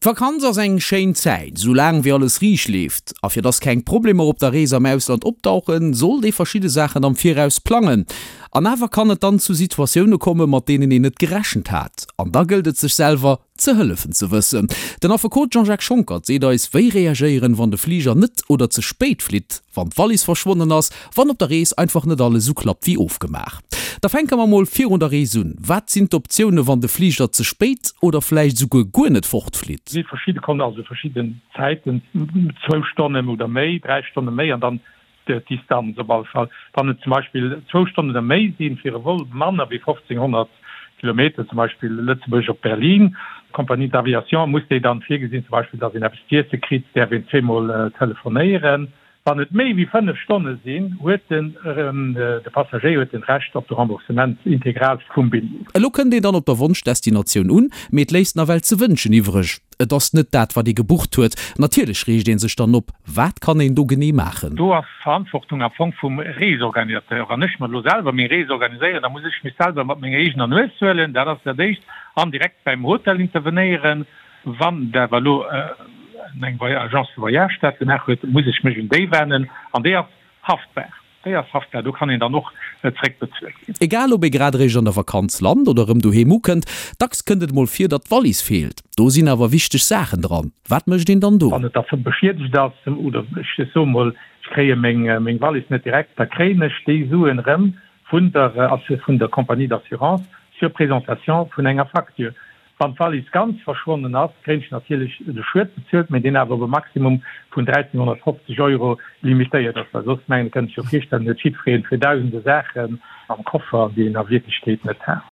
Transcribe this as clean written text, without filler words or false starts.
D'Vakanz ass eng schéin Zäit, sou laang wéi alles riicht leeft. A fir dass keng Problemer op der Rees am Ausland opdauchen, sollt ee verschidde Saachen am Viraus plangen. An awer kann et dann zu Situatioune komme mat deenen een net gerechent hat. An da gëllt et sech selwer ze hëllefen ze wëssen. Den Affekot Jean-Jacques Schonckert seet eis, wéi reagéieren, wann de Fliger net oder ze spéit flitt, wann d'Wallis verschwonnen ass, wann op der Rees einfach net alles esou klappt wéi ofgemaach. Da fänke mer mol virun der Rees un. Wat sinn d'Optioune wann de Fliger ze spéit oder vläicht esouguer guer net fortflitt? Si verschidde Kon also verschidden Zäiten, zwou Stonnen oder méi, 3 Stonne méi an dann d'Distanz op alle Fall. Wann et zum Beispill zwou Stonnen oder méi sinn, fir e Vol manner wéi 1500 Kilometer, zum Beispill Lëtzebuerg op Berlin, d'Compagnie d'aviation muss déi dann virgesinn, zum Beispill datt een eppes z'iesse kritt, däerf een zweemol telefonéieren. Wann et méi wéi 5 Stonne sinn, huet den de Passagéier huet den Recht op de Remboursement integral vum Billjee. Elo kënnt een dann op der Wonschdestinatioun un, mee et léisst nawell ze wënschen iwwreg. Et ass net dat wat ee gebucht huet. Natierlech reegt ee sech dann op. Wat kann een do genee maachen? Do ass d'Verantwortung am Fong vum Reesorganisateur. Wann ech mer elo selwer meng Rees organiséieren, da muss ech mech selwer mat menger eegener Nues huelen, dat ass dat éischt, an direkt beim Hotel intervenéieren. Wann et awer elo eng Agence de voyage dat gemaach huet, muss ech mech un déi wennen an déi ass haftbar. Déi ass haftbar, do kann een dann och zréckbezuelt ginn. Egal ob ee grad eréischt an der Vakanz lant oder erëm doheem ukënnt, dacks kënnt et mol vir, datt d'Wallis feelt. Do sinn awer wichteg Saachen dran. Wat mécht een dann do? Wann et da beschiedegt ass oder ech soe mol, ech kréie meng Wallis net direkt, da kréien ech déi Suen erëm vun der vun der Compagnie d'assurance sur présentation vun enger Facture. Wann d'Wallis ganz verschwonnen ass, kréien ech natierlech de Schued bezuelt, mee deen awer op e Maximum vun 1.350 Euro limitéiert ass, well soss, mengen, kënnt sech jo virstellen, huet jiddwereen fir dausende Saachen am Koffer, déi een a Wierklechkeet net hat.